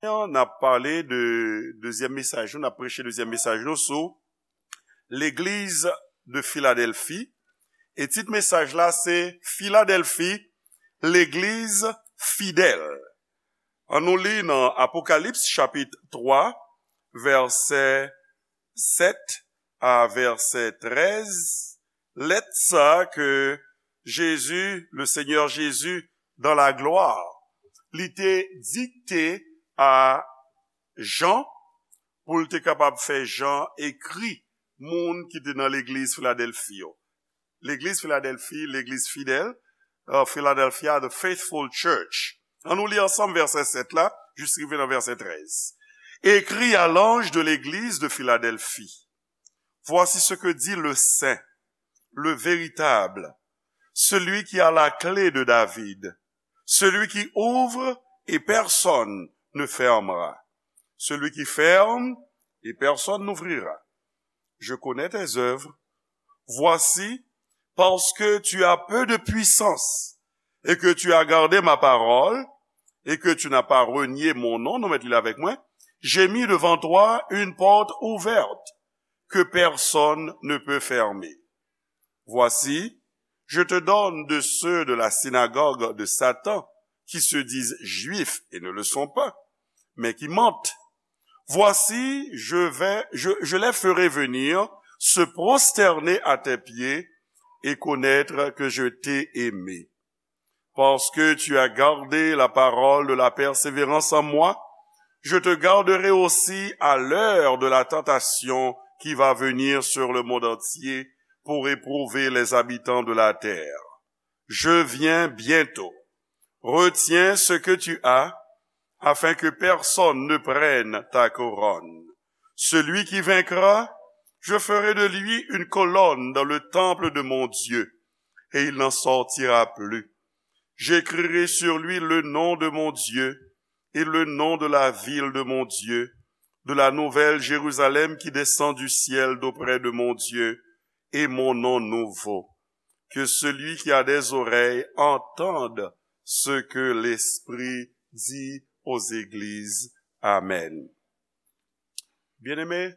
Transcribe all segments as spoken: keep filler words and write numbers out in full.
N ap pale de dezyèm mesaj nou, n ap preche dezyèm mesaj nou sou legliz de Filadèlfi. E tit mesaj la se Filadèlfi, legliz fidèl. An nou li nan Apokalips chapit twa, vèsè sèt a vèsè trèz, lèt sa ke Jezi, le Senyè Jezi, dans la gloire, li te dikte a Jan pou l te kapab fè Jan ekri moun ki te nan legliz Filadèlfi yo. Legliz Filadèlfi, legliz fidèl, uh, Philadelphia, the faithful church. An nou li ansanm vèsè sèt la, jis rive nan vèsè trèz. Écris à l'ange de l'église de Philadelphie. Voici ce que dit le saint, le véritable, celui qui a la clé de David, celui qui ouvre et personne ne fermera, celui qui ferme et personne n'ouvrira. Je connais tes œuvres. Voici, parce que tu as peu de puissance, et que tu as gardé ma parole, et que tu n'as pas renié mon nom, nou met li avèk mwen, j'ai mis devant toi une porte ouverte que personne ne peut fermer. Voici, je te donne de ceux de la synagogue de Satan, qui se disent juifs et ne le sont pas, mais qui mentent. Voici, je vais, je, je les ferai venir se prosterner à tes pieds et connaître que je t'ai aimé. Parce que tu as gardé la parole de la persévérance en moi, je te garderai aussi à l'heure de la tentation qui va venir sur le monde entier pour éprouver les habitants de la terre. Je viens bientôt. Retiens ce que tu as, afin que personne ne prenne ta couronne. Celui qui vaincra, je ferai de lui une colonne dans le temple de mon Dieu, et il n'en sortira plus. J'écrirai sur lui le nom de mon Dieu et le nom de la ville de mon Dieu, de la nouvelle Jérusalem qui descend du ciel d'auprès de mon Dieu, et mon nom nouveau. Que celui qui a des oreilles entende ce que l'Esprit dit aux églises. Amen. Bien-aimés,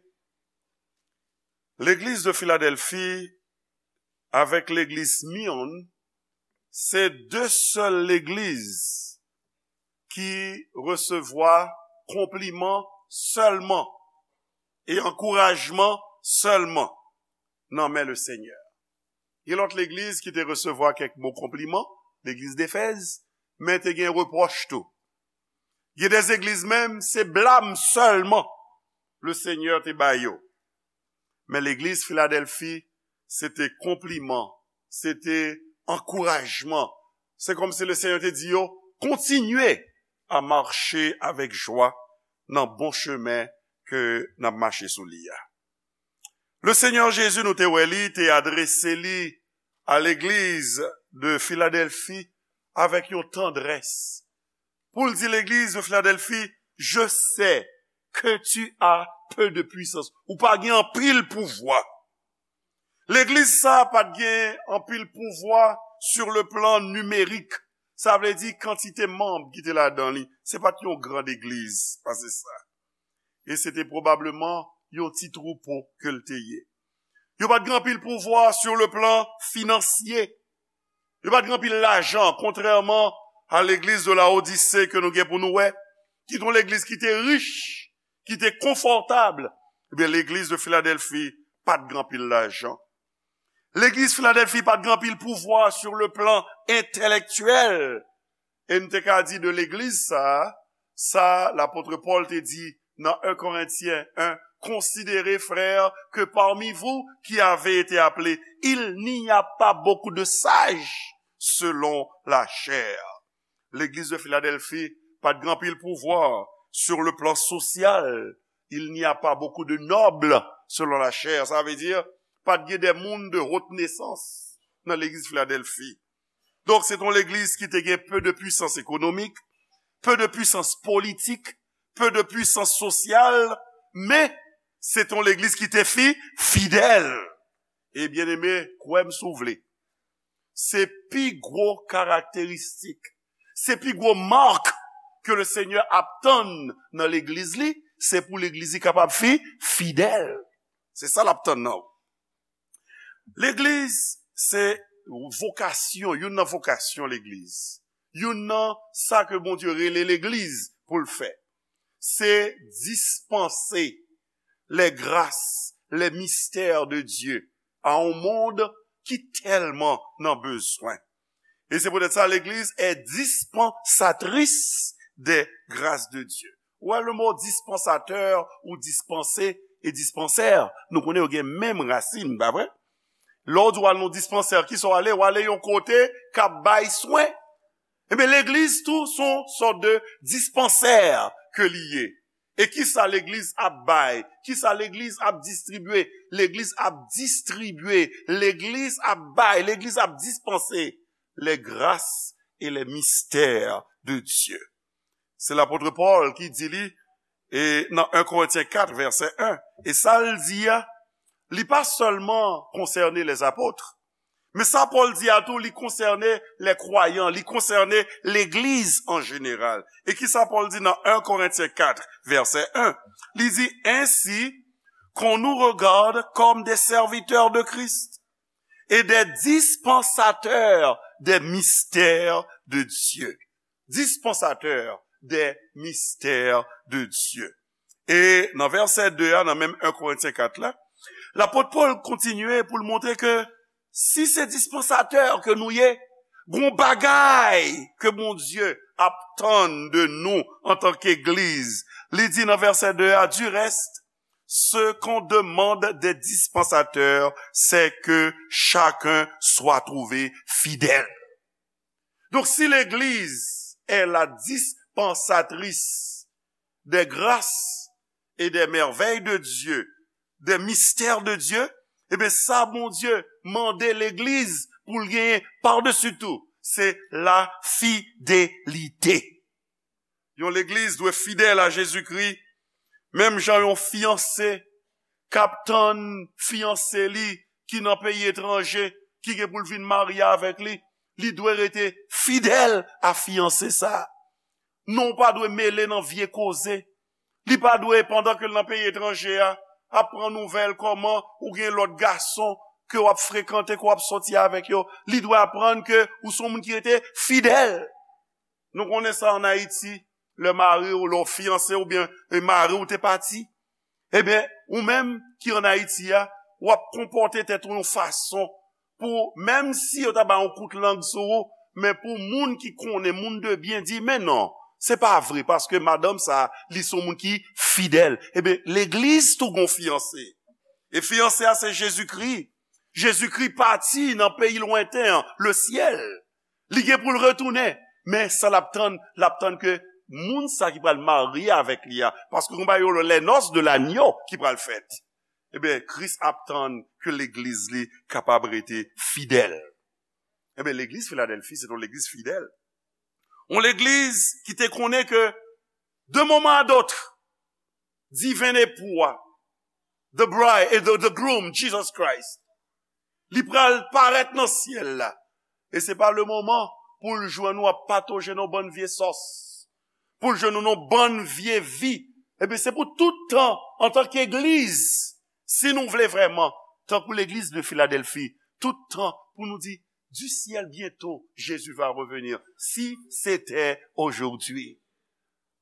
legliz de Philadelphie avèk legliz Smyrne, se de sèl legliz ki resevwa konpliman sèlman e ankourajman sèlman nan men le Senyè. Gen lòt legliz ki te resevwa kèk mo konpliman, legliz Defèz, men te gen repwòch tou. Gen de legliz menm, se blam sèlman le Senyè te ba yo. Men legliz Filadèlfi, se te konpliman, se te ankourajman. Se kòmsi le Senyè te di yo, kontinye a mache avèk jwa nan bon chemen ke n ap mache sou li a. Le Senyè Jezi, nou te wè li, te adrese li a legliz de Filadèlfi avèk yon tandrès. Pou l di legliz de Filadèlfi, je sais que tu as peu de puissance. Ou pa gen anpil pouvwa. Legliz sa a pa t gen anpil pouvwa sur le plan nimerik. Sa vle di kantite manm ki te ladan li. Se pa t yon gran legliz pase sa. E se te pwobableman yon ti twoupo ke l te ye. Yo pa t gen anpil pouvwa sur le plan financier. Yo pa t gen anpil lajan, kontrèman a legliz de Laodise ke nou gen pou nou wè, ki te yon legliz ki te rich, ki te konfòtab. Ebyen, legliz de Filadèlfi pa t gen anpil lajan. Legliz Filadèlfi pa t gen anpil pouvwa sur le plan entèlèktyèl. E n te ka di de legliz sa a, sa lapot Pòl te di nan un Korentyen en, considérez, frères, que parmi vous qui avez été appelés, il n'y a pas beaucoup de sages selon la chair. Legliz de Filadèlfi pa t gen anpil pouvwa sur le plan social. Il n'y a pas beaucoup de nobles selon la chair. Sa vle di, pa t gen de moun de haute naissance nan legliz Filadèlfi. Donk, se t yon legliz ki te gen peu de puissance économique, peu de puissance politique, peu de puissance sociale, men se t yon legliz ki te fi, fidèl. E byeneme, kwè m si w vle, se pi gwo karakteristik, se pi gwo mak ke le Senyè ap tann nan legliz li, se pou legliz li kapab fi, fidèl. Se sa l ap tann nan ou. Legliz, se vokasyon, youn nan vokasyon legliz. Youn nan sa ke Bondye rele legliz pou l fè. Se dispanse les grâces, les mystères de Dieu à un monde ki tèlman nan bezwen. E se poutèt sa, legliz est dispensatrice des grâces de Dieu. Ou wè le mo dispansatè ou dispanse e dispansè, nou konnen yo gen menm rasin, pa vre? Lè w di w al nan dispansè, ki sa w ale? W ale yon kote k ap bay swen. Ebyen, legliz tou, se yon sòt de dispansè ke li ye. E kisa legliz ap bay? Kisa legliz ap distribye? Legliz ap distribye, legliz ap bay, legliz ap dispanse les grâces et les mystères de Dieu. Se lapot Pòl ki di li, e nan en Korentyen kat, vèsè en, e sa l di a, li pa sèlman konsène les apôtres, men sa Pòl di a tou, li konsène les croyants, li konsène legliz an jeneral. E kisa Pòl di nan en Korentyen kat, vèsè en? Li di, ainsi qu'on nous regarde comme des serviteurs de Christ et des dispensateurs des mystères de Dieu. Dispensateur des mystères de Dieu. E nan vèsè de a, nan menm en Korentyen kat la, lapot Pòl kontinye pou l montre ke si se dispansatè ke nou ye, gon bagay ke Bondye ap tann de nou antanke legliz. Li di nan vèsè de a, du reste, ce qu'on demande des dispensateurs, c'est que chacun soit trouvé fidèle. Donc, si l'Église est la dispensatrice des grâces et des merveilles de Dieu, des mystères de Dieu, ebyen, sa Bondye mande legliz pou l genyen padesi tou, se la fidelite. Yon legliz dwe fidèl a Jezikri, menm jan yon fiyanse k ap tann fiyanse li ki nan peyi etranje, ki gen pou l vin marye avèk li, li dwe rete fidèl a fiyanse sa a. Non, ou pa dwe mele nan vye koze. Li pa dwe, pandan ke l nan peyi etranje a, ap pran nouvèl kòman ou gen lòt gason ke w ap frekante, ke w ap sòti avèk yo. Li dwe aprann ke ou se yon moun ki rete fidèl. Nou konnen sa ann Ayiti, lè mari w, lè w fiyanse oubyen e mari w te pati, ebyen, ou menm ki ann Ayiti a, w ap konpòte tèt ou yon fason pou, menm si yo ta bay yon kout lang sou ou, men pou moun ki konnen, moun de byen, di, men non, se pa vre, paske madanm sa a, li se yon moun ki fidèl. Ebyen, legliz tou gon fiyanse. E fiyanse a, se Jezikri. Jezikri pati nan peyi lwenten an, le syèl. Li gen pou l retounen. Men sa l ap tann, l ap tann ke moun sa ki pral marye avèk li a. Paske konba yo, les noces de l'agneau ki pral fèt. Ebyen, Kris ap tann ke legliz li kapab rete fidèl. Ebyen, legliz Filadèlfi, se yon legliz fidèl. Yon legliz ki te konnen ke, de moman a dòt, diven epou a, the bride, the, the groom, Jesus Christ, li pral parèt nan syèl la. E se pa le moman pou l jwenn ou ap patoje nan bann vye sòs, pou l jwenn ou nan bann vye vi. Ebyen, se pou tout tan, antanke legliz, si nou vle vrèman, tankou legliz de Filadèlfi, tout tan pou nou di, du ciel bientôt, Jésus va revenir. Si c'était aujourd'hui.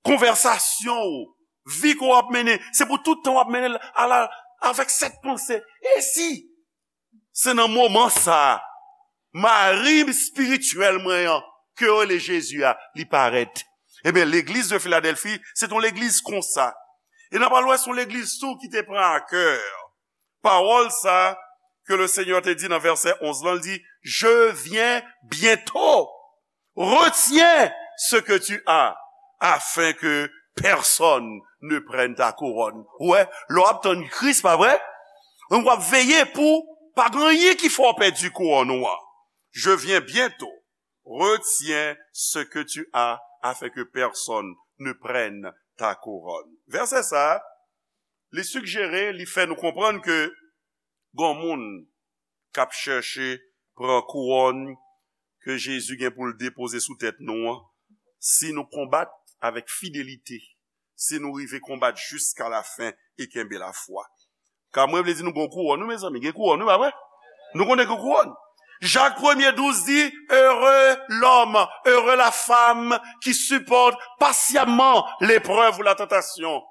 Konvèsasyon ou, vi ke w ap mennen, se pou tout tan w ap mennen l ala, avèk sèt panse. E si se nan moman sa a, mari espirityèl mwen an, ke yo rele Jezi a, li parèt? Ebyen, legliz de Filadèlfi, se t on legliz konsa. E n ap al wè, se yon legliz tou ki te pran a kè pawòl sa a ke le Senyè te di nan vèsè onz lan, li di, je viens bientôt. Retiens ce que tu as, afin que personne ne prenne ta couronne. Ou wè, lè w ap tann Kris, pa vre? Donk, w ap veye pou pa gen anyen ki fè w pèdi kouwòn ou an. Je viens bientôt. Retiens ce que tu as, afin que personne ne prenne ta couronne. Vèsè sa a, li sigjere, li fè nou konprann ke gon moun k ap chèche pran kouwòn ke Jezi gen pou l depoze sou tèt nou an, si nou konbat, avèk fidelite si nou rive konbat jiska lafen e kenbe lafwa. Ka mwen vle di nou gon kouwòn, nou, mezanmi, gen kouwòn, nou, pa vre? Nou konnen gen kouwòn. Jak premye douz di, Heureux l'homme, heureux la femme qui supporte patiemment l'épreuve ou la tentation,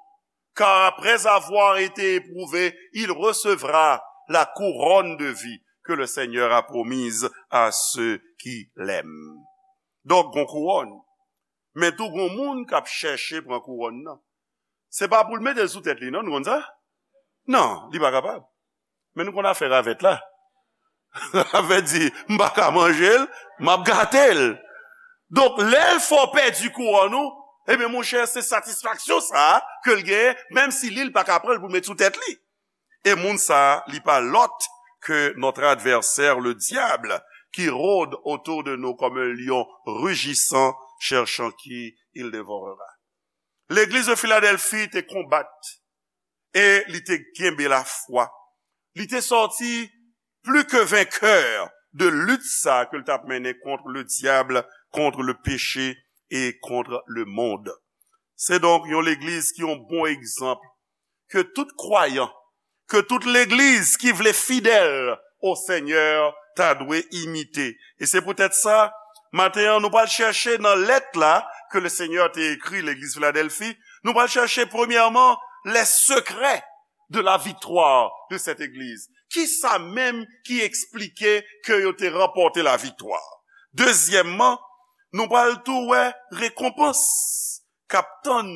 car après avoir été éprouvé, il recevra la couronne de vie que le Seigneur a promise à ceux qui l'aiment. Donk, gon kouwòn. Men tou gon moun k ap chèche pran kouwòn nan. Se pa pou l mete l sou tèt li, non, nou konn sa? Non, li pa kapab. Men nou konn afè ravèt la. Ravèt di, m pa ka manje l, m ap gate l. Donk, lè l fè w pèdi kouwòn ou, ebyen, monchè, se satisfaksyon sa a ke l genyen, menm si li, l pa ka pran l pou l met sou tèt li. E moun sa a, li pa lòt ke notre adversaire, le diable, qui rôde autour de nous comme un lion rugissant, cherchant qui il dévorera. Legliz de Philadelphie te konbat e li te kenbe lafwa. Li te sòti pli ke venkè de lit sa ke l t ap mennen kont le diable, contre le péché et contre le monde. Se donk yon legliz ki yon bon egzanp ke tout kwayan, ke tout legliz ki vle fidèl o Senyè ta dwe imite. E se poutèt sa, maten an, nou pral chèche nan lèt la ke le Senyè te ekri legliz Filadèlfi, nou pral chèche premyèman les secrets de la victoire de cette église. Ki sa menm ki eksplike ke yo te ranpòte laviktwa? Dezyèmman, nou pral tou wè rekonpans k ap tann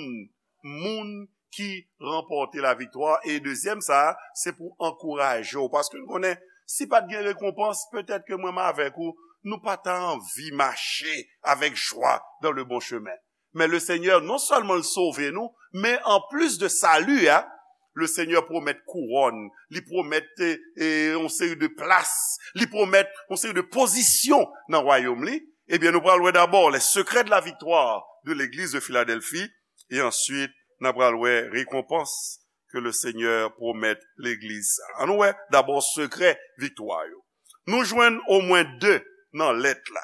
moun ki ranpòte laviktwa. E dezyèm sa, se pou ankouraje w. Paske nou konnen, si pa t gen rekonpans, petèt ke mwen m avèk ou, nou pa ta anvi mache avèk jwa dans le bon chemin. Men le Senyè, non sèlman l sove nou, men an plis de sali a, le Senyè pwomèt kouwòn, li pwomèt e, e, yon seri de plas, li pwomèt yon seri de pozisyon nan wayòm li. Ebyen, nou pral wè dabò les secrets de la victoire de l'église de Philadelphie, e answit, n ap pral wè rekonpans ke le Senyè pwomèt legliz sa. Ann nou wè dabò sekrè viktwa yo. Nou jwenn omwen de nan lèt la.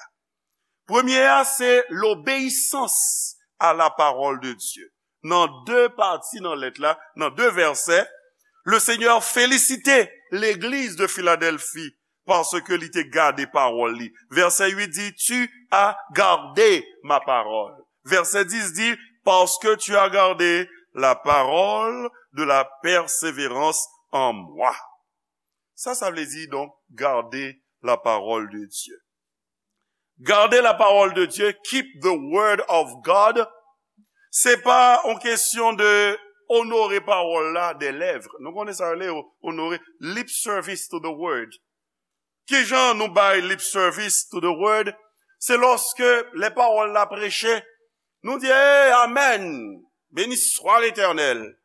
Premye a, se l'obéissance à la parole de Dieu. Nan de pati nan lèt la, nan de vèsè, le Senyè felisite legliz de Filadèlfi paske li te gade pawòl li. Vèsè uit di, Tu as gardé ma parole. Vèsè dis di, Parce que tu as gardé la parole de la persévérance en moi. Sa, sa vle di, donk, garder la parole de Dieu. Garder la parole de Dieu, keep the word of God, se pa yon kesyon de onore pawòl la de lèv. Nou konnen sa rele onore, lip service to the word. Kijan nou bay lip service to the word? Se lòske lè pawòl la preche, nou di, "Hey, amèn! Béni soit l'Éternel."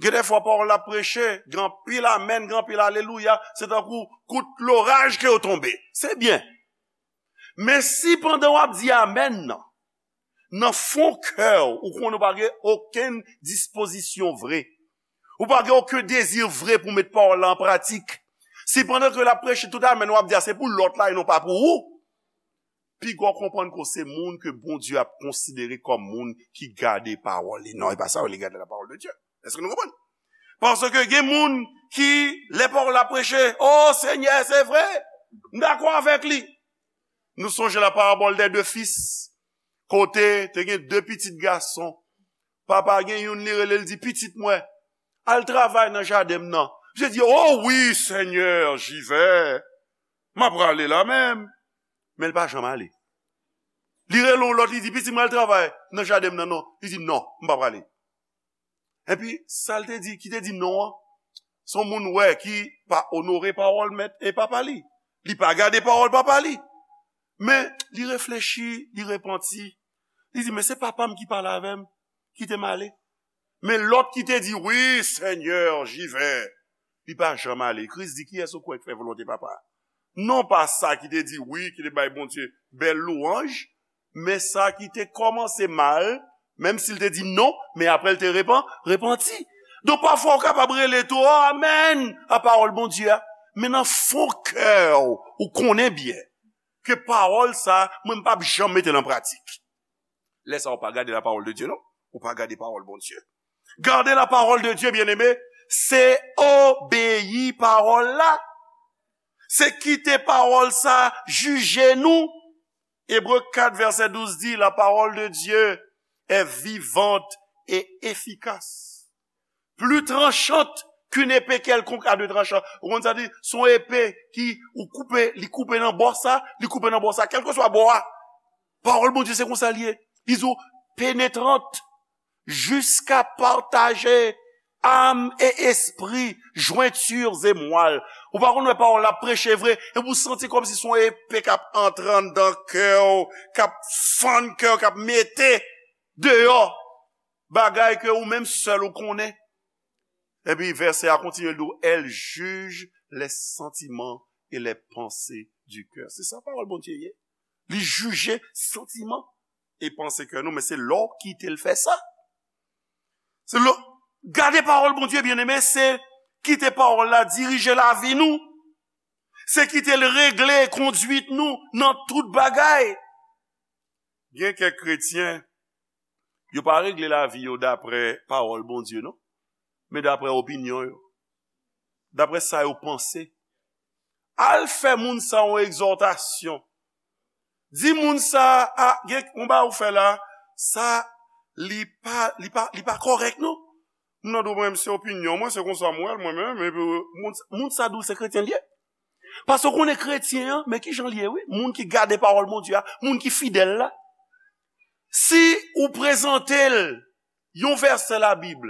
Gen de fwa pawòl la preche, gen anpil amèn, gen anpil alelouya, se tankou kout loraj ke yo tonbe. Se byen. Men si pandan w ap di amèn nan, nan fon kè w, ou konnen w pa gen okenn dispozisyon vre, ou pa gen okenn dezi vre pou met pawòl la an pratik, si pandan ke l ap preche tout amèn w ap di a se pou lòt la e non pa pou ou, piga w konprann ke w se moun ke Bondye ap konsidere kòm moun ki gade pawòl li. Non, e pa sa w rele garder la parole de Dieu. Èske nou konprann? Paske gen moun ki, lè pawòl la preche, "O Senyè, se vre, m dakò avèk li." Nou sonje la parabole des deux fils, kote te gen de pitit gason. Papa gen youn, li rele l, di, "Pitit mwen, al travay nan jaden m nan." Misye di, "O wi, Senyè, j'y vais. M ap prale la menm." Men l pa janm ale. Li rele yon lòt, li di, "Pitit mwen, al travay nan jaden m nan, non." Li di, "Non, m pa prale." Epi, sa l te di, ki te di non an, se yon moun wè ki pa onore pawòl mèt e papa li. Li pa gade pawòl papa li. Men, li reflechi, li repanti. Li di, "Men se papa m ki pale avè m, kite m ale." Men lòt ki te di, "Oui, Seigneur, j'y vais," li pa janm ale. Kris di, "Kiyès ou kwè k fè volonte papa a?" Non pa sa ki te di wi, ki te bay Bondye bèl lwanj, men sa ki te kòmanse mal, menm si l te di non, men apre l te repan, repanti. Donk, pafwa, ou kapab rele tou, "O, amèn!" a pawòl Bondye a, men nan fon kè w, ou konnen byen ke pawòl sa a, mwen, m p ap janm mete l an pratik. Lè sa a, ou pa gade la parole de Dieu, non. Ou pa gade pawòl Bondye. Gade la parole de Dieu, bien-aimé, se obeyi pawòl la. Se kite pawòl sa jije nou. Ebre kat vèsè douz di, la parole de Dieu est vivante et efficace, plus tranchante qu'une épée quelconque à deux tranchants. Ou konn sa di, se yon epe ki ou koupe, li koupe nan bò sa, li koupe nan bò sa, kèlkeswa bò a. Pawòl Bondye se konsa l ye. Li di w penetrant, jusqu'à partager âme et esprit, jointures et moelle. Ou pa konn wè pawòl la preche vre, epi ou santi kòmsi se yon epe k ap antre anndan kè w, k ap fann kè w, k ap mete deyò bagay ke ou menm sèl ou konnen. Epi vèsè a kontinye, l di w, elle juge les sentiments et les pensées du cœur. Se sa pawòl Bondye ye. Li jije santiman e panse kè nou, men se lè w kite l fè sa. Se lè, gade pawòl Bondye, byeneme, se kite pawòl la dirije lavi nou. Se kite l regle kondwit nou nan tout bagay. Gen kèk kretyen, yo pa regle lavi yo dapre pawòl Bondye, non, men dapre opinyon yo, dapre sa yo panse. Al fè moun sa yon egzòtasyon. Di moun sa, a, gen yon bagay ou fè la, sa, li pa, li pa, li pa kòrèk, non. Moun nan di w, mwen, se opinyon mwen, se konsa m wè l, mwen menm, epi moun, moun sa di w se kretyen l ye. Paske w konnen kretyen an, men ki jan l ye, wi, moun ki gade pawòl Bondye a, moun ki fidèl la. Si ou prezante l yon vèsè Labib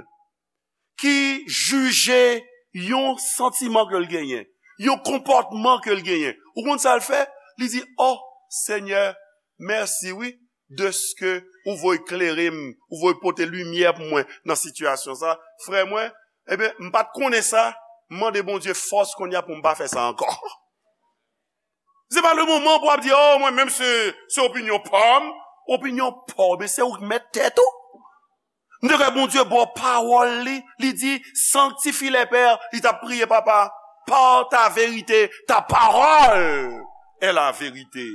ki jije yon santiman ke l genyen, yon konpòtman ke l genyen, ou konn sa l fè? Li di, "O Senyè, mèsi, wi, dèske ou voye klere m, ou voye pote limyè pou mwen nan sitiyasyon sa." Frè mwen, ebyen, m pa t konnen sa, m mande Bondye fòs kounye a pou m pa fè sa ankò. Se pa le moman pou w ap di, "O, mwen menm se, se opinyon pa m." Opinyon pa w, men se ou k mèt tèt ou. M te kwè Bondye ba w pawòl li, li di, "Sanctifie-les, Père," li t ap priye, "Papa, par ta vérité, ta parole est la vérité."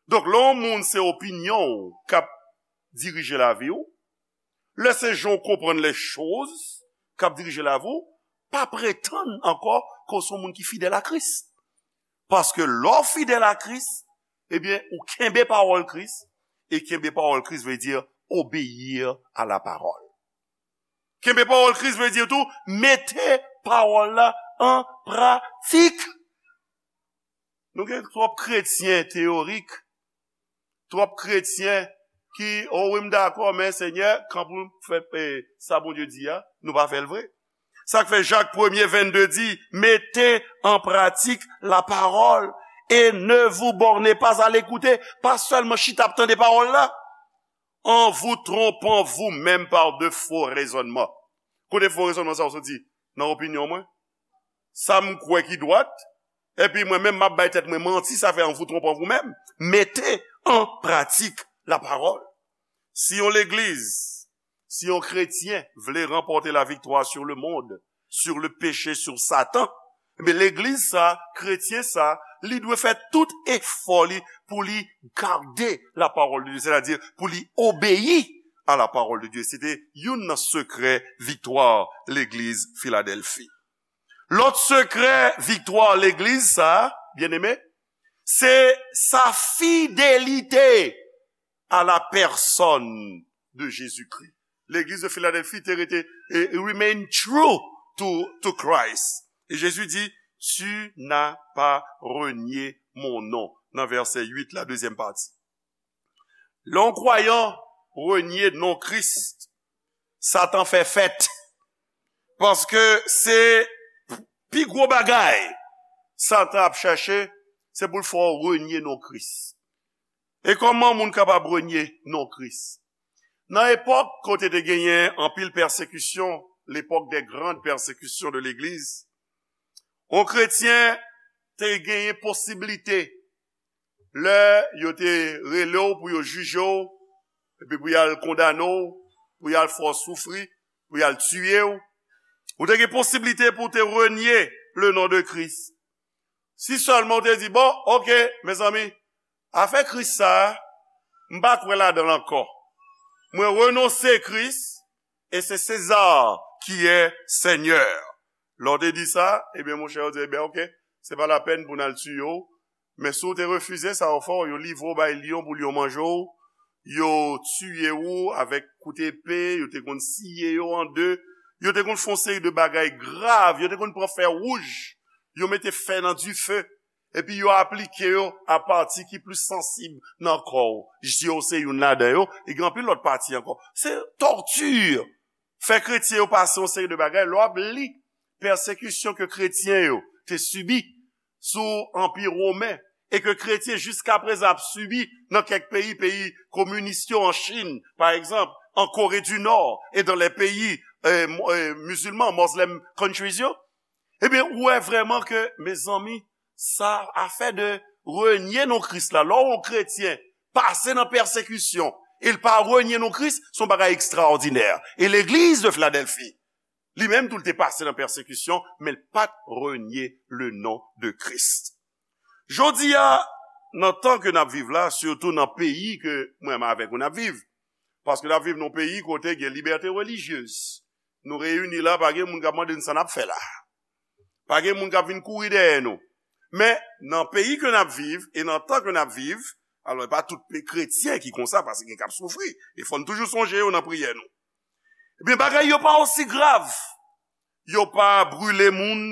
Donk, lè yon moun se opinyon w k ap dirije lavi w, lè se jan w konprann lèchoz k ap dirije lavi w, pa pretann ankò ke w se yon moun ki fidèl a Kris. Paske lè w fidèl a Kris, ebyen, ou kenbe pawòl Kris, e kenbe pawòl Kris vle di obéir à la parole. Kenbe pawòl Kris vle di tou, mete pawòl la an pratik. Nou gen twòp kretyen teyorik, twòp kretyen ki, "O wi, m dakò, men Senyè, kan pou fè, eh, sa Bondye di a, nou pa fè l vre." Sa k fè Jak premye vennde di, "Mettez en pratique la parole et ne vous bornez pas à l'écouter." Pa sèlman chita ap tande pawòl la. "En vous trompant vous-même par de faux raisonnements." Kote fo rezònman sa yo soti? Nan opinyon mwen. Sa m kwè ki dwat, epi mwen menm m ap bay tèt mwen manti, sa fè en vous trompant vous-même. Mettez en pratique la parole. Si yon legliz, si yon kretyen vle ranpòte la viktwa sur le monde, sur le péché, sur Satan, ebyen, legliz sa, kretyen sa, li dwe fè tout efò li pou li gade la parole de Dieu, sètadi pou li obeyi a la parole de Dieu. Se te youn nan sekrè viktwa legliz Filadèlfi. Lòt sekrè viktwa legliz sa, byeneme, se sa fidelite à la personne de Jésus-Christ. Legliz de Philadelphie te rete, eh, remain true to, to Christ. E Jezi di, "Tu n'as pas renié mon nom," nan vèsè uit la, dezyèm pati. Lè yon kwayan renye non Kris, Satan fè fèt. Paske se pi gwo bagay Satan ap chèche, se pou l fè w renye non Kris. E kòman moun kapab renye non Kris? Nan epòk kote te genyen anpil pèsekisyon, l'époque des grandes persécutions de l'Église, yon kretyen te genyen posiblite, lè yo te rele w pou yo jije w, epi pou y al kondane w, pou y al fè w soufri, pou y al tiye w, ou te gen posiblite pou w te renye le non de Kris. Si sèlman w te di, "Bon, oke, mezanmi, afè Kris sa a, m pa kwè ladan l ankò. Mwen renonse Kris, e se Seza ki è Senyè. Lè w te di sa, ebyen, monchè, yo di, ebyen, oke, se pa lapèn pou n al tiye w. Men si w te refize sa yo fè w, yo livre w bay lyon pou lyon manje w, yo tiye w avèk kout epe, yo te konn siye yo an de, yo te konn fè yon seri de bagay grav, yo te konn pran fè wouj, yo mete fè nan dife, epi yo aplike yo a pati ki plis sansib nan kò w. Zye w se youn ladan yo, e gen anpil lòt pati ankò. Se tòti. Fè kretyen yo pase yon seri de bagay. Lè w ap li pèsekisyon ke kretyen yo te sibi sou Anpi Women, e ke kretyen jiskaprezan ap sibi nan kèk peyi, peyi kominis yo, an Chin, pa egzanp, an Kore di Nò, e dans les pays, euh, mo- euh, musulmans, Muslim countries yo, ebyen, ou wè vrèman ke, mezanmi, sa afè de renye non Kris la, lè w yon kretyen pase nan pèsekisyon, e l pa renye non Kris, se yon bagay ekstraòdinè. E legliz de Filadèlfi, li menm tou, l te pase nan pèsekisyon, men l pa t renye le non de Kris. Jodi a, nan tan ke n ap viv la, sitou nan peyi ke mwen menm avèk ou n ap viv, paske n ap viv nan yon peyi kote gen libète relijyez. Nou reyini la, pa gen moun k ap mande n sa n ap fè la. Pa gen moun k ap vin kouri dèyè nou. Men, nan peyi ke n ap viv, e nan tan ke n ap viv, alò, e pa tout pe- kretyen ki konsa, paske gen k ap soufri. E fò n toujou sonje yo nan priyè nou. Ebyen, bagay yo pa osi grav. Yo pa brile moun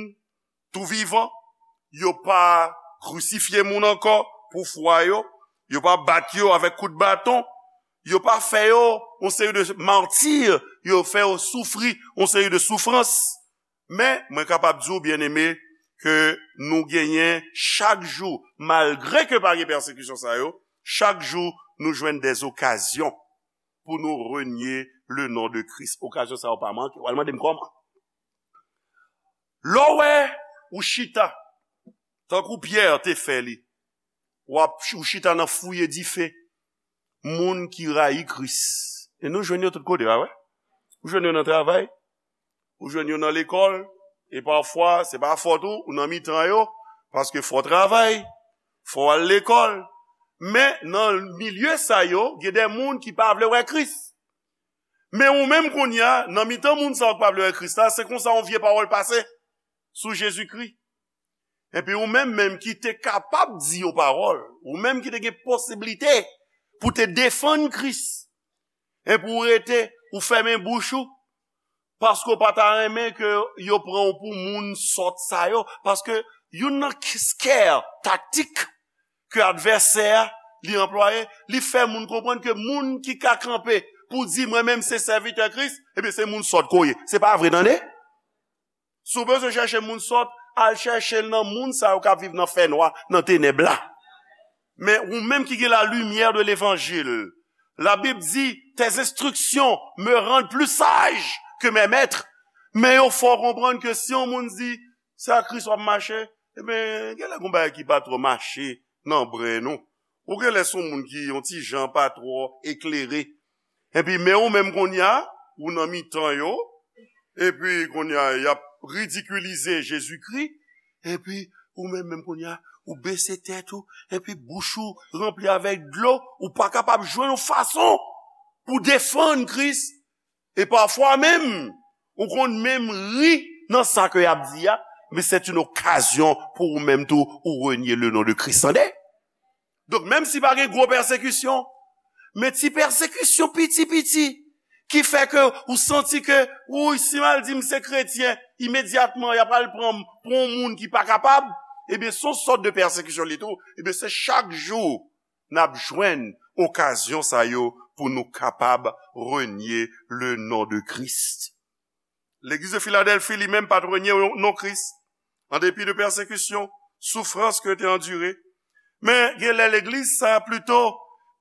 tou vivan. Yo pa krisifye moun ankò pou fwa yo. Yo pa bat yo avèk kout baton. Yo pa fè yo yon seri de mati. Yo fè yo soufri yon seri de soufrans. Men, mwen kapab di w, byeneme, ke nou genyen chak jou, malgre ke pa gen pèsekisyon sa yo, chak jou nou jwenn dèzokazyon pou nou renye le non de Kris. Okazyon sa yo pa manke. W al mande m kòman. Lè w wè ou chita, tankou Pyè te fè li, w ap ou chita nan fouye dife moun ki rayi Kris. E nou jwenn yo tout kote, pa vre? Ou jwenn yo nan travay, ou jwenn yo nan lekòl, e pafwa, se pa fòt ou, ou nan mitan yo, paske fò w travay, fò w al lekòl. Men, nan milye sa yo, gen de moun ki pa vle wè Kris. Men ou menm kounye a, nan mitan moun sa yo ki pa vle wè Kris la, se konsa yon vye pawòl pase sou Jezikri. Epi ou menm, menm ki te kapab di yon pawòl, ou menm ki te gen posiblite pou te defann Kris, epi ou rete, ou fèmen bouch ou, paske w pa ta renmen ke yo pran w pou moun sòt sa yo, paske youn nan k- scare taktik ke advèsè a li anplwaye, li fè moun konprann ke moun ki ka kanpe pou di, "Mwen menm se sèvitè Kris," ebyen, se moun sòt ke w ye. Se pa vre, tande? Si w bezwen chèche moun sòt, al chèche l nan moun sa yo k ap viv nan fènwa, nan tenèb la. Men ou menm ki gen la lumière de l'évangile, la Bible dit, tes instructions me rendent plus sage que mes maîtres. Men yo fè w konprann ke si yon moun di, "Se ak Kris w ap mache," ebyen, genlè gen bagay ki pa twò mache nan bren nou. Ou genlè se yon moun ki yon ti jan pa twò eklere. Epi, men ou menm kounye a, ou nan mitan yo, epi kounye a, y ap ridikilize Jezikri, epi ou menm, menm kounye a, ou bese tèt ou, epi bouch ou ranpli avèk dlo, ou pa kapab jwenn yon fason pou defann Kris, e pafwa menm, ou konn menm ri nan sa ke y ap di a, men c'est une occasion pou ou menm tou, ou renye le non de Kris, tande? Donk, menm si pa gen gwo pèsekisyon, men ti pèsekisyon piti piti, ki fè ke ou santi ke, wi, si m al di m se kretyen, imedyatman, y ap al pran m pou yon moun ki pa kapab, ebyen, se yon sòt de pèsekisyon li tou. Ebyen, se chak jou n ap jwenn okazyon sa yo pou nou kapab renye le non de Kris. Legliz de Filadèlfi, li menm, pa t renye non Kris, an depi de pèsekisyon, soufrans ke te andire. Men, genlè legliz sa a plito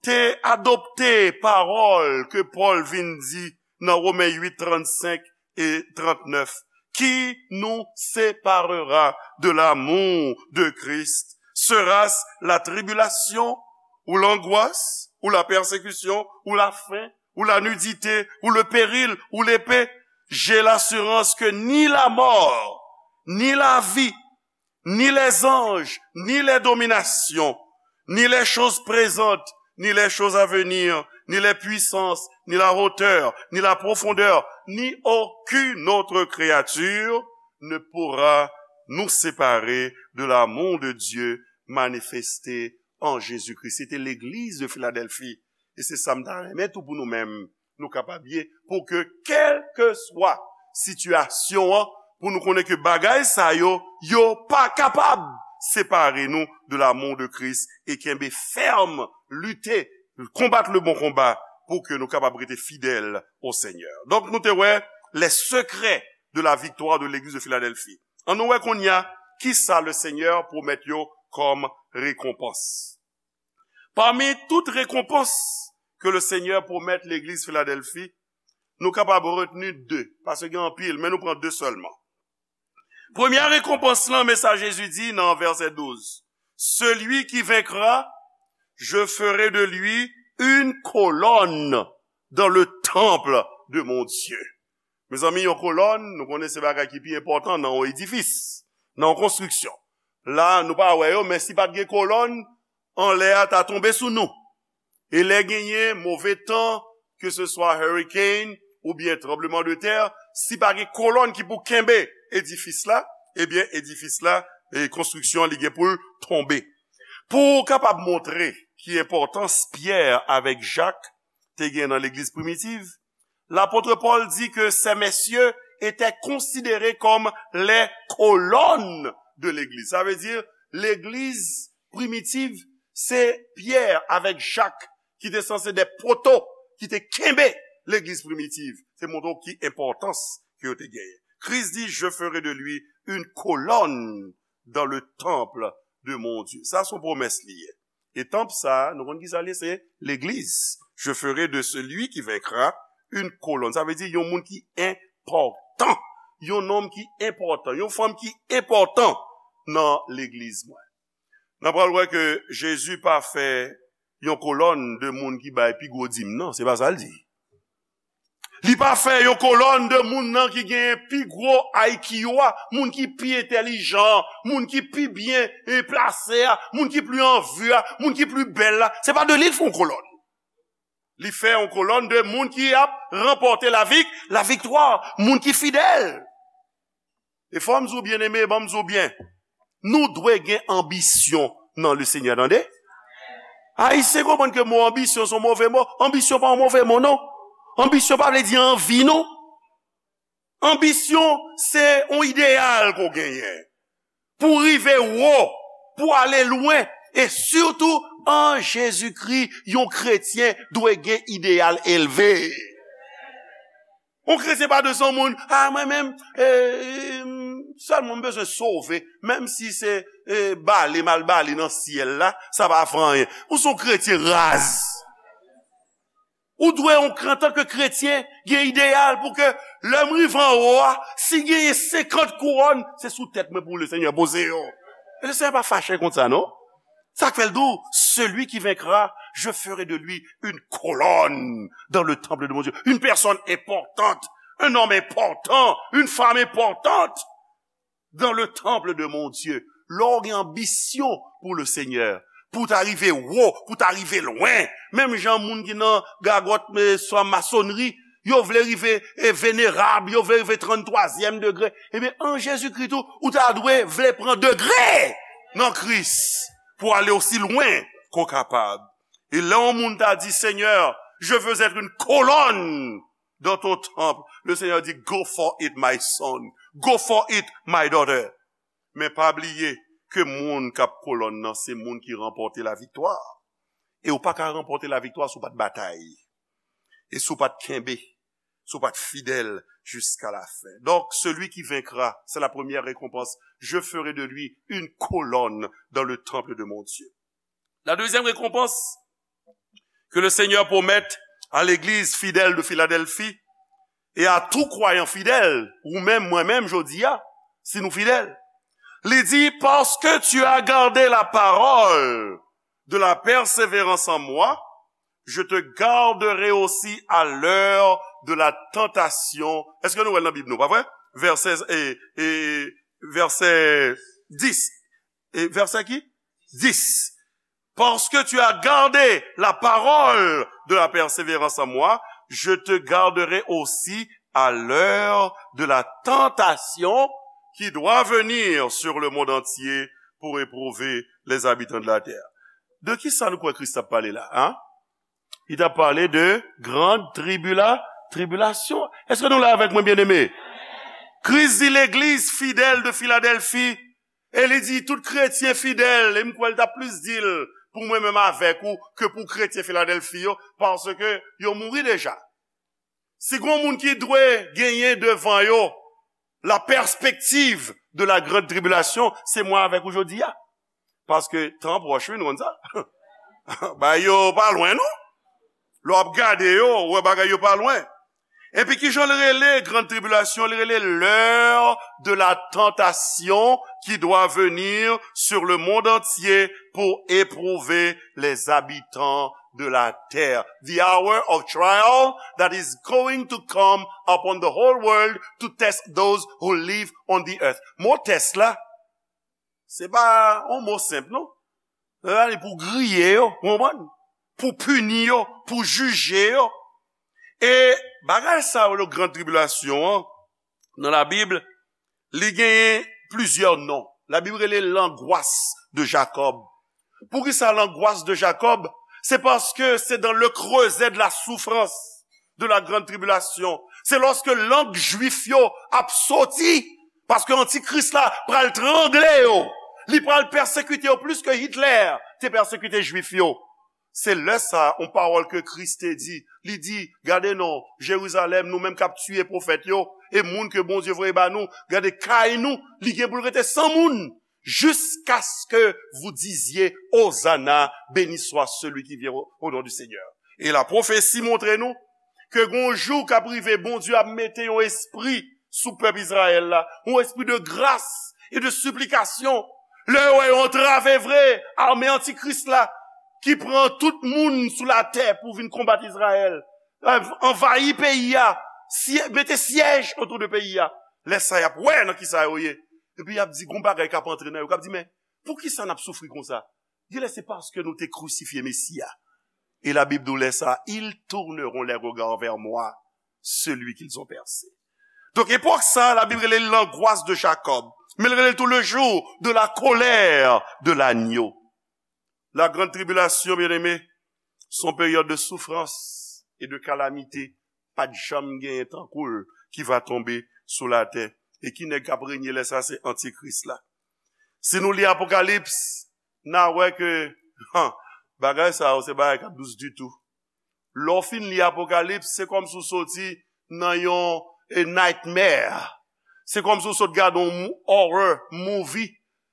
te adopte pawòl ke Pòl vin di nan Women uit, trannsenk e trannèf. Qui nous séparera de l'amour de Christ? Sera-ce la tribulation, ou l'angoisse, ou la persécution, ou la faim, ou la nudité, ou le péril, ou l'épée? J'ai l'assurance que ni la mort, ni la vie, ni les anges, ni les dominations, ni les choses présentes, ni les choses à venir, ni les puissances, ni la hauteur, ni la profondeur, ni aucune autre créature ne pourra nous séparer de l'amour de Dieu manifesté en Jésus-Christ. Se te legliz de Filadèlfi. E se sa m ta renmen tou pou nou menm, nou kapab ye, pou ke kèlkeswa sitiyasyon an, pou nou konnen ke bagay sa yo, yo pa kapab separe nou de l'amour de Christ e kenbe fèm, lite, konbat le bon combat pou ke nou kapab rete fidèl o Senyè. Donk, nou te wè les secrets de la victoire de l'église de Philadelphie. An nou wè kounye a, kisa le Senyè pwomèt yo kòm rekonpans. Pami tout rekonpans ke le Senyè pwomèt legliz Filadèlfi, nou kapab retni de, paske gen anpil, men nou pran de sèlman. Premye rekonpans lan, men sa Jezi di nan vèsè douz, celui qui vaincra, je ferai de lui une colonne dans le temple de mon Dieu. Mezanmi, yon kolòn, nou konnen se bagay ki pi enpòtan nan yon edifis, nan yon konstriksyon. La, nou pa wè yo, men si pa t gen kolòn, anlè a ta tonbe sou nou. E lè genyen move tan, ke se swa hurricane oubyen tranbleman de tè, si pa gen kolòn ki pou kenbe edifis la, ebyen, edifis la, e konstriksyon an, li gen pou l tonbe. Pou w kapab montre ki enpòtans Pyè avèk Jak te gen nan legliz primitiv, lapot Pòl di ke ces messieurs étaient considérés comme les colonnes de l'église. Sa vle di, legliz primitiv, se Pyè avèk Jak ki te sanse de poto ki te kenbe legliz primitiv. Se montre w ki enpòtans ke yo te genyen. Kris di, je ferai de lui une colonne dans le temple de mon Dieu. Sa se yon pwomès li ye. E tanp sa, nou konn ki sa l ye, se legliz. Je ferai de celui qui vaincra une colonne. Sa vle di yon moun ki enpòtan. Yon nonm ki enpòtan. Yon fanm ki enpòtan nan legliz mwen. N a pral wè ke Jezi pa fè yon kolòn de moun ki bay pi gwo dim nan. Se pa sa l di. Li pa fè yon kolòn de moun nan ki genyen pi gwo I Q a, moun ki pi entèlijan, moun ki pi byen, e, plase a, moun ki pli an vi a, moun ki pli bèl la. Se pa de li l fè yon kolòn. Li fè yon kolòn de moun ki ap ranpòte lavik-, laviktwa, moun ki fidèl. E fò m di w, byeneme, ban m di w byen, nou dwe gen anbisyon nan le Senyè, tande? Ayisyen konprann ke mo anbisyon se yon move mo. Anbisyon pa yon move mo, non. Anbisyon pa vle di anvi, non. Anbisyon, se yon ideyal ke w genyen. Pou w rive wo, pou w ale lwen, e sitou an Jezikri, yon kretyen dwe gen ideyal elve. Yon kretyen pa dwe se yon moun, a, mwen menm, e, e, sèlman m bezwen sove, menm si se, e, bale m al bale nan syèl la, sa pa fè anyen. Ou se yon kretyen raz. Ou dwe, antanke kretyen, gen ideyal pou ke lè m rive anwo a, si genyen senkant kouwòn, se sou tèt mwen pou le Senyè poze yo. E le Senyè pa fache kont sa, non. Sa k fè l di w, celui qui vaincra, je ferai de lui une colonne dans le temple de mon Dieu. Une personne importante, un homme important, une femme importante dans le temple de mon Dieu. Lè w gen anbisyon pou le Senyè, pou w ta rive wo, pou w ta rive lwen, menm jan moun ki nan gagòt, e, swa masonri, yo vle rive, e, venerab, yo vle rive tranntwazyèm degre. Ebyen, an Jezikri tou, ou ta dwe vle pran degre nan Kris pou ale osi lwen ke w kapab. E lè yon moun ta di, Seigneur, je veux être une colonne dans ton temple, le Senyè di, go for it, my son. Go for it, my daughter. Men pa bliye ke moun k ap kolòn nan, se moun ki ranpòte laviktwa. E w pa ka ranpòte laviktwa si w pa t batay. E si w pa t kenbe, si w pa t fidèl jiska lafen. Donc, celui qui vaincra, c'est la première récompense. Je ferai de lui une colonne dans le temple de mon Dieu. La deuxième récompense que le Seigneur promet à l'église fidèle de Philadelphie et à tout croyant fidèle, ou menm, mwen menm, jodi a, si nou fidèl, li di, parce que tu as gardé la parole de la persévérance en moi, je te garderai aussi à l'heure de la tentation. Èske nou wè l nan Bib nou, pa vre? Vèsè, e, e, vèsè dis. E vèsè ki? Dis. Parce que tu as gardé la parole de la persévérance en moi, je te garderai aussi à l'heure de la tentation qui doit venir sur le monde entier pour éprouver les habitants de la terre. De ki sa nou kwè Kris ap pale la, hein? Li t ap pale de grande tribula, tribulation. Èske nou la avèk mwen, byeneme? Kris di legliz fidèl de Filadèlfi, e li di tout kretyen fidèl, e m kwè l t ap plis di l pou mwen menm avèk ou ke pou kretyen Filadèlfi yo, paske yo mouri deja. Si gon moun ki dwe genyen devan yo la perspective de la grande tribulation, se mwen avèk ou jodi a. Paske tan pwòch, wi, nou konn sa. Bagay yo pa lwen, non. Lè w ap gade yo, ou wè bagay yo pa lwen. Epi ki jan l rele grande tribulation? Li rele l'heure de la tentation qui doit venir sur le monde entier pour éprouver les habitants de la terre. The hour of trial that is going to come upon the whole world to test those who live on the earth. Mo tès la, se pa yon mo senp, non. Sa vle di pou griye yo, ou konprann? Pou pini yo, pou jije yo. E bagay sa yo, le gran tribilasyon an, nan Labib, li genyen plizyè non. Labib rele l'angoisse de Jacob. Poukisa l'angoisse de Jacob? Se paske se dans le creuset de la souffrance, de la grande tribulation. Se lòske lang jwif yo ap soti, paske antikris la pral trangle yo. Li pral pèsekite yo plis ke Hitler te pèsekite jwif yo. Se lè sa, yon pawòl ke Kris te di, li di, gade non, Jerizalèm, nou menm k ap tiye pwofèt yo, e moun ke Bondye voye ba nou, gade kay nou, li gen pou l rete san moun, jusqu'à ce que vous disiez, Hosanna, béni soit celui qui vient au, au nom du Seigneur. E la pwofesi montre nou ke gon jou k ap rive, Bondye ap mete yon espri sou pèp Izrayèl la, yon espri de gras e de siplikasyon. Lè yo wè yo antrave vre ame antikris la, ki pran tout moun sou latè pou vin konbat Izrayèl, anvayi peyi a, mete syèj otou de peyi a. Lè sa y ap wè nan kisa yo ye. Epi y ap di, gon bagay k ap antre nan yo, k ap di, men poukisa n ap soufri konsa? Genlè se paske nou te krisifye Mesi a. E Labib di w lè sa, ils tourneront les regards vers moi, celui qu'ils ont percé. Donk, epòk sa, Labib rele l l'angoisse de Jacob, men l rele l tou le jour de la colère de l'agneau. La grande tribulation, bien-aimé, se yon peryòd de soufrans e de kalamite. Pa t janm genyen tankou l ki va tonbe sou latè. E ki nèg k ap renye lè sa? Se antikris la. Si nou li Apokalips, n a wè ke, han, bagay sa yo se bagay k ap dous ditou. Lè w fin li Apokalips, se kòmsi w soti nan yon, eh, nightmare. Se kòmsi w sot gade yon mou- horror movie.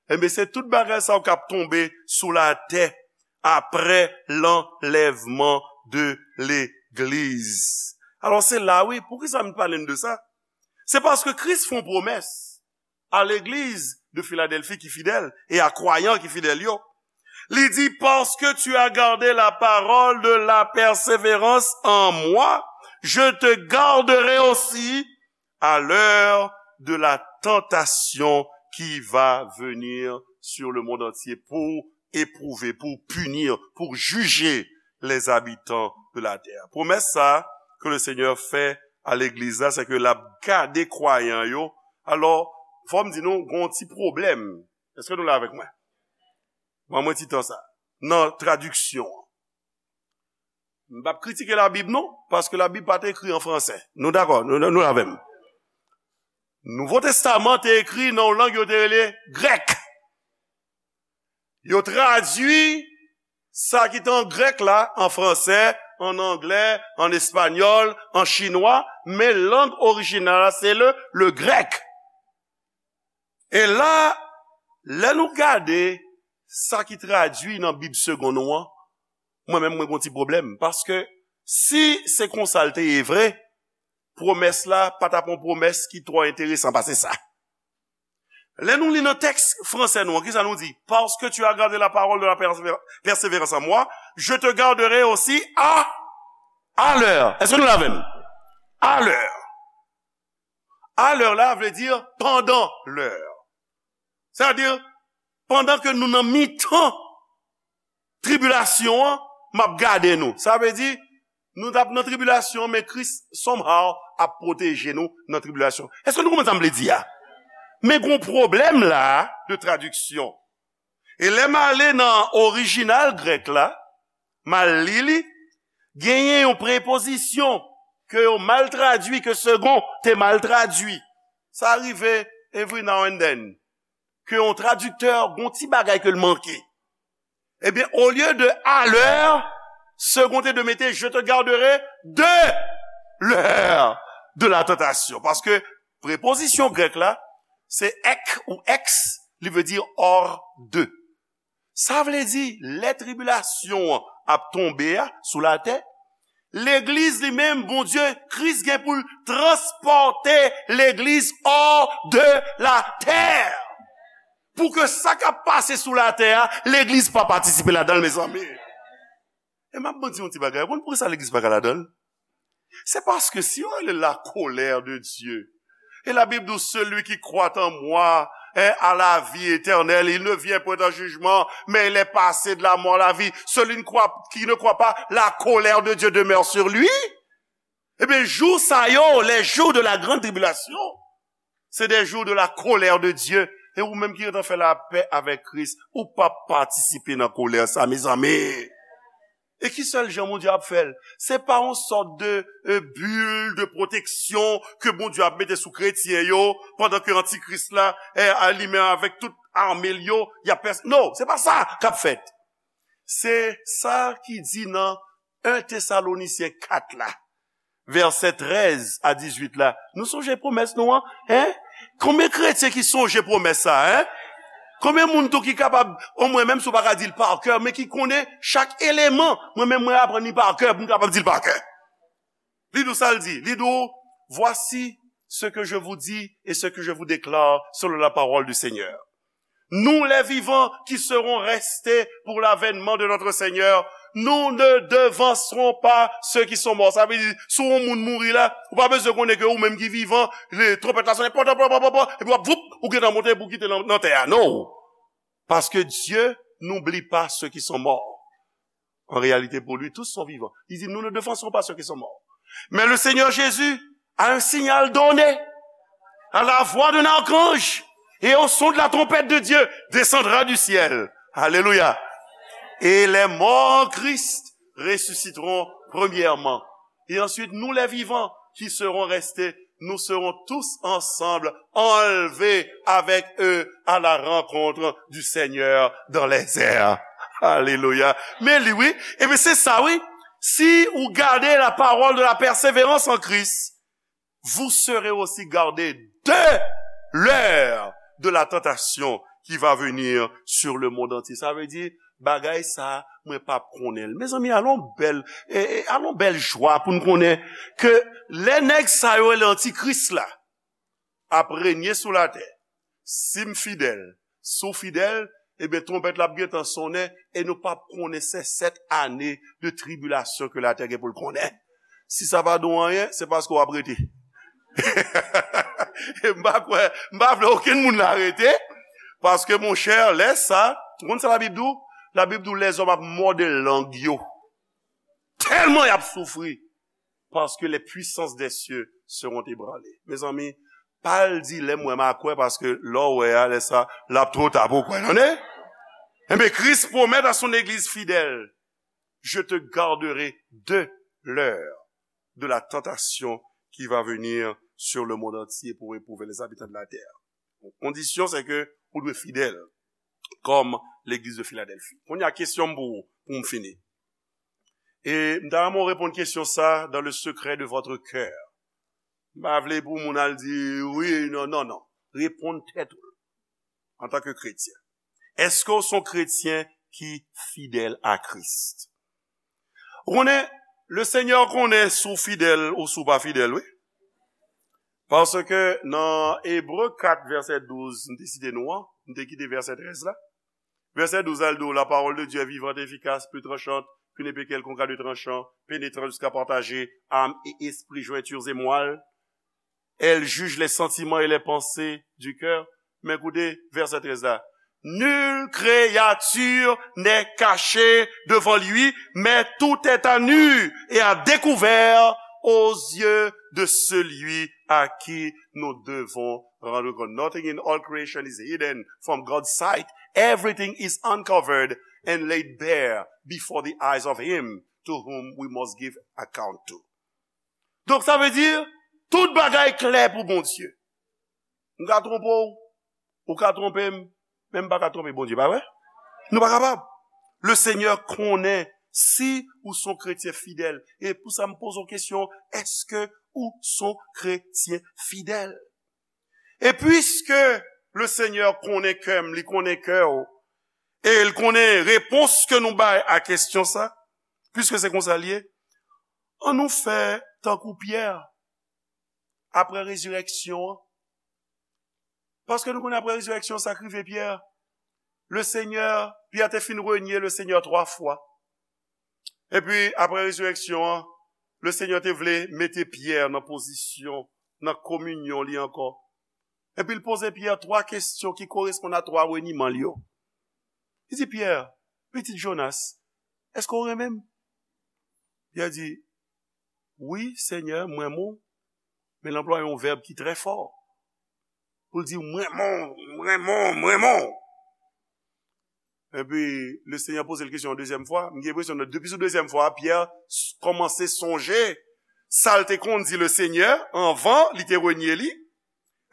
Enben, se tout bagay sa yo k ap tonbe sou latè apre l'enlèvement de l'église. Alò, se la, wi, poukisa m pale n de sa? Se paske Kris fè yon pwomès a legliz de Filadèlfi ki fidèl e a kwayan ki fidèl yo. Li di, parce que tu as gardé la parole de la persévérance en moi, je te garderai aussi à l'heure de la tentation qui va venir sur le monde entier pour éprouver, pour punir, pour juger les habitants de la terre. Pwomès sa ke le Senyè fè a legliz la, se ke l ap gade kwayan yo. Alò, fò m di nou, gon ti pwoblèm. Èske nou la avèk mwen? Ban mwen ti tan sa. Nan tradiksyon an. M p ap kritike Labib non, paske Labib pa t ekri an fransè. Nou dakò? Nou, nou, nou la avè m? Nouvo Testaman te ekri nan yon lang yo te rele grèk. Yo tradui sa ki te an grèk la, an fransè, an anglè, an espanyòl, an chinwa, men lang orijinal la, se le, le grèk. E la, lè nou gade sa ki tradui nan Bib Segond nou an, mwen menm, mwen gon ti pwoblèm. Paske si se konsa l te ye vre, pwomès la pa t ap yon pwomès ki twò enteresan pase sa. Lè nou li nan tèks fransè nou an, kisa nou di? Parce que tu as gardé la parole de la persévér- persévérance en moi, je te garderai aussi à, à l'heure. Èske nou la avè m? À l'heure. À l'heure la vle di pandan lè. Sètadi, pandan ke nou nan mitan tribilasyon an, m ap gade nou. Sa vle di, nou t ap nan tribilasyon, men Kris, somehow, ap pwoteje nou nan tribilasyon. Èske nou konprann sa m vle di a? Men gon pwoblèm la de tradiksyon. E lè m ale nan orijinal grèk la, m al li li, genyen yon prepozisyon ke yo mal tradui, ke Segond te mal tradui. Sa rive every now and then. Ke yon tradiktè, gon ti bagay ke l manke. Ebyen, olye de à l'heure, Segond te dwe mete je te garderai de l'heure de la tentation. Paske prepozisyon grèk la, se ek ou ex, li vle di hors de. Sa vle di, lè tribilasyon an ap tonbe a sou latè, legliz li menm, Bondye, Kris gen pou l transpòte legliz hors de la terre. Pou ke sa k ap pase sou latè a, legliz pa patisipe ladan l, mezanmi. E m ap di yon ti bagay, ou konn poukisa legliz pa ka ladan l? Se paske si yo rele la colère de Dieu, et la Bible dit, celui qui croit en moi, hein, a la vie éternelle, il ne vient point en jugement, mais il est passé de la mort à la vie. Celui ne croit, qui ne croit pas, la colère de Dieu demeure sur lui. Ebyen, jou sa yo, les jours de la grande tribulation, c'est des jours de la colère de Dieu. E ou menm ki gentan fè lapè avèk Kris, ou pa patisipe nan kolè sa, mezanmi. E ki sèl jan Bondye ap fè l? Se pa yon sòt de, euh, bil de pwoteksyon ke Bondye ap mete sou kretyen yo pandan ke antikris la, eh, a li menm avèk tout ame l yo, y ap pès-, non, se pa sa k ap fèt. Se sa ki di nan en Tesalonisyen kat la, vèsè trèz a dizuit la. Nou sonje pwomès nou an, en? Konbyen kretyen ki sonje pwomès sa, en? Konbyen moun tou ki kapab, omwen menm si w pa ka di l pa kè, men ki konnen chak eleman? Mwen menm, mwen aprann li pa kè pou m kapab di l pa kè. Li di w sa l di, li di w, voici ce que je vous dis et ce que je vous déclare selon la parole du Seigneur. Nous, les vivants qui serons restés pour l'avènement de notre Seigneur, nous ne devancerons pas ceux qui sont morts. Sa vle di, si yon moun mouri la, ou pa bezwen konnen ke ou menm ki vivan, le, twonpèt la sonnen, pò, pò, pò, pò, pò, epi w ap, voup, ou gentan monte pou kite nan, nan tè a. Non. Parce que Dieu n'oublie pas ceux qui sont morts. En réalité, pour lui, tous sont vivants. Il dit, nous ne devancerons pas ceux qui sont morts. Mais le Seigneur Jésus, à un signal donné, à la voix d'un archange et au son de la trompette de Dieu, descendra du ciel. Alléluia. Et les morts en Christ ressusciteront premièrement. Et ensuite, nous les vivants qui serons restés, nous serons tous ensemble enlevés avec eux à la rencontre du Seigneur dans les airs. Alléluia. Men li, wi. Ebyen, se sa, wi. Si ou gade la parole de la persévérance en Christ, vous serez aussi gardés de l'heure de la tentation qui va venir sur le monde entier. Sa vle di, bagay sa, mwen p ap konnen l. Mezanmi, alon bèl, e, e, alon bèl jwa pou n konnen ke lè nèg sa yo rele antikris la ap renye sou latè, si m fidèl, si w fidèl, ebyen, twonpèt la ap gentan sonnen e nou p ap konnen se sèt ane de tribilasyon ke latè gen pou l konnen. Si sa pa di w anyen, se paske w ap rete. M pa kwè, m pa vle okenn moun la rete, paske, monchè, lè sa, ou konn sa Labib di w? Labib di w lèzòm ap mòde lang yo. Tèlman y ap soufri, parce que les puissances des cieux seront ébranlées. Mezanmi, pa al di lè m wè m a kwè, paske lè w wè a, lè sa, l ap twò ta pou w kwè, tande? Enben, Kris pwomèt a son egliz fidèl, je te garderai de l'heure de la tentation qui va venir sur le monde entier pour éprouver les habitants de la terre. Kondisyon, se ke ou dwe fidèl, kòm legliz de Filadèlfi. Kounye a, kesyon m pou ou, pou m fini. E m ta renmen w reponn kesyon sa dans le secret de votre cœur. M pa vle pou moun al di, wi, non, non, non. Reponn tèt ou, antanke kretyen. Èske w se yon kretyen ki fidèl a Kris? Ou konnen, le Senyè konnen si w fidèl ou si w pa fidèl, wi. Paske nan Ebre kat vèsè douz, m te site nou an, m te kite vèsè trèz la. Vèsè douz la, l di w, la parole de Dieu est vivante et efficace, plus tranchante qu'une épée quelconque à deux tranchants, pénétrant jusqu'à partager âme et esprit, jointures et moelle. Elle juge les sentiments et les pensées du cœur. Men koute vèsè trèz la. Nulle créature n'est cachée devant lui, mais tout est à nu et à découvert aux yeux de celui à qui nous devons rendre compte. Nothing in all creation is hidden from God's sight. Everything is uncovered and laid bare before the eyes of him to whom we must give account to. Donk, sa vle di, tout bagay klè pou Bondye. M ka twonpe w, ou ka twonpe m, men m pa ka twonpe Bondye, pa vre? Nou pa kapab. Le Seigneur konnen si ou son kretyen fidèl. E pou sa, m poze w kesyon, èske ou son kretyen fidèl? E piske le Seigneur konnen kè m, li konnen kè w, e l konnen repons ke nou bay a kesyon sa, piske se konsa l ye, ann nou fè tankou Pyè, apre rezirèksyon an. Paske nou konnen apre rezirèksyon, sa k rive Pyè. Le Seigneur, Pyè te fin renye le Seigneur twa fwa. Epi, apre rezirèksyon an, le Seigneur te vle mete Pyè nan pozisyon, nan kominyon li ankò. Epi l poze Pyè twa kesyon ki koresponn a twa reniman l yo. Li di, Pyè, pitit Jonas, èske w renmen m? Pyè di, wi, Senyè, m renmen w. Men l anplwaye yon vèb ki trè fò. Pou l di, m renmen w, m renmen w, m renmen w. Epi, le Senyè poze l kesyon yon dezyèm fwa. M gen enpresyon, depi sou dezyèm fwa, Pyè s- kòmanse sonje sa l te konn di le Senyè anvan li te renye li.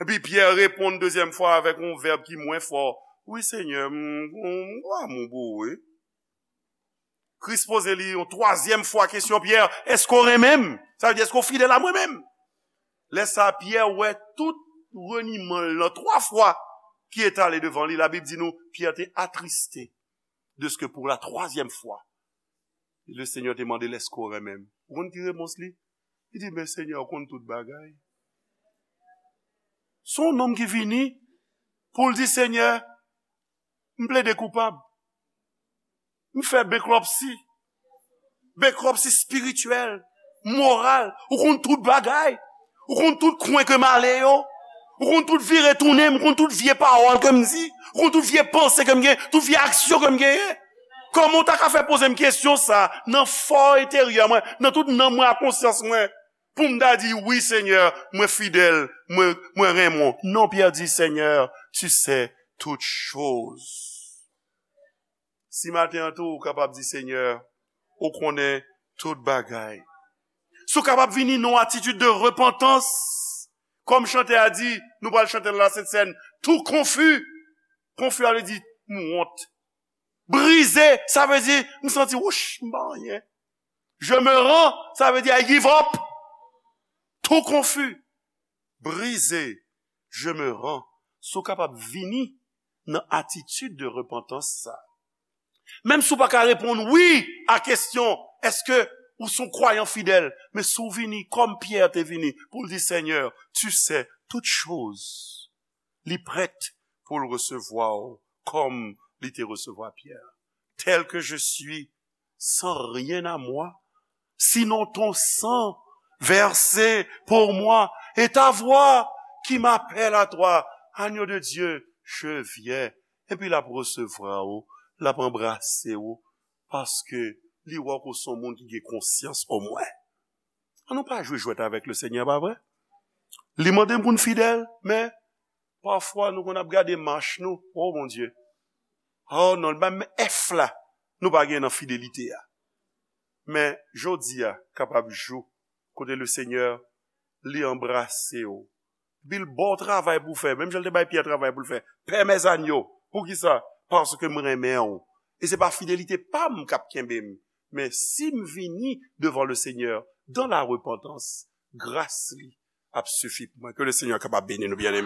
Epi, Pyè reponn dezyèm fwa avèk yon vèb ki mwen fò. Wi, Senyè, m, m, m, m, m, wi. Kris poze li yon twazyèm fwa kesyon, Pyè, èske w renmen m? Sa vle di, èske w fidèl a mwen menm? Lè sa a, Pyè wè tout reniman l nan twa fwa ki etale devan li. Labib di nou, Pyè te atriste dèske pou la twazyèm fwa, le Senyè te mande l, èske w renmen m? Ou konn ki repons li? Li di, men Senyè, ou konn tout bagay. Se yon nonm ki vini pou l di, Senyè, m plede koupab. M fè bankruptcy. Bankruptcy espirityèl, moral. Ou konn tout bagay. Ou konn tout kwen ke m ale yo. Ou konn tout vire tounen m. Ou konn tout vye pawòl ke m di. Ou konn tout vye panse ke m gen. Tout vye aksyon ke m genyen. Kòman w ta ka fè poze m kesyon sa nan fò enteryè mwen, nan tout nanm mwen ak konsyans mwen, pou m ta di, wi, Senyè, mwen fidèl, mwen, mwen renmen w? Non, Pyè di, Senyè, tu sais toutes choses. Si maten an tou, ou kapab di, Senyè, ou konnen tout bagay. Si w kapab vini nan yon atitid de repantans, kòm chantè a di, nou pral chante nan la Sent Sèn, tou konfi. Konfi a vle di, m wont. Brize, sa vle di, m santi, wouch, m pa anyen. Je me rends, sa vle di, I give up. Tou konfi. Brize, je me rends. Si w kapab vini nan atitid de repantans sa. Menm si w pa ka reponn wi a kesyon, èske ou se yon kwayan fidèl? Men si w vini kòm Pyè te vini, pou l di, Senyè, tu sais toutes choses. Li prèt pou l resevwa w kòm li te resevwa Pyè. Tel que je suis, sans rien à moi, sinon ton sang versé pour moi et ta voix qui m'appelle à toi. Agneau de Dieu, je viens. Epi l ap resevwa w, l ap anbrase w, paske li wè w se yon moun ki gen konsyans omwen. An nou pa jwe jwèt avèk le Senyè, pa vre? Li mande n pou n fidèl, men pafwa nou konn ap gade mach nou, o Bondye. O non, li ba m F la, nou pa gen nan fidelite a. Men jodi a kapab jou kote le Senyè li anbrase w. Epi l ba w travay pou w fè, menm jan l te bay Pyè travay pou l fè. Pè mèzanyo, poukisa? Paske m renmen w. E se pa fidelite pa m k ap kenbe m, men si m vini devan le Senyè dan la repantans, gras li ap sifi pou mwen. Ke le Senyè kapab beni nou, byeneme.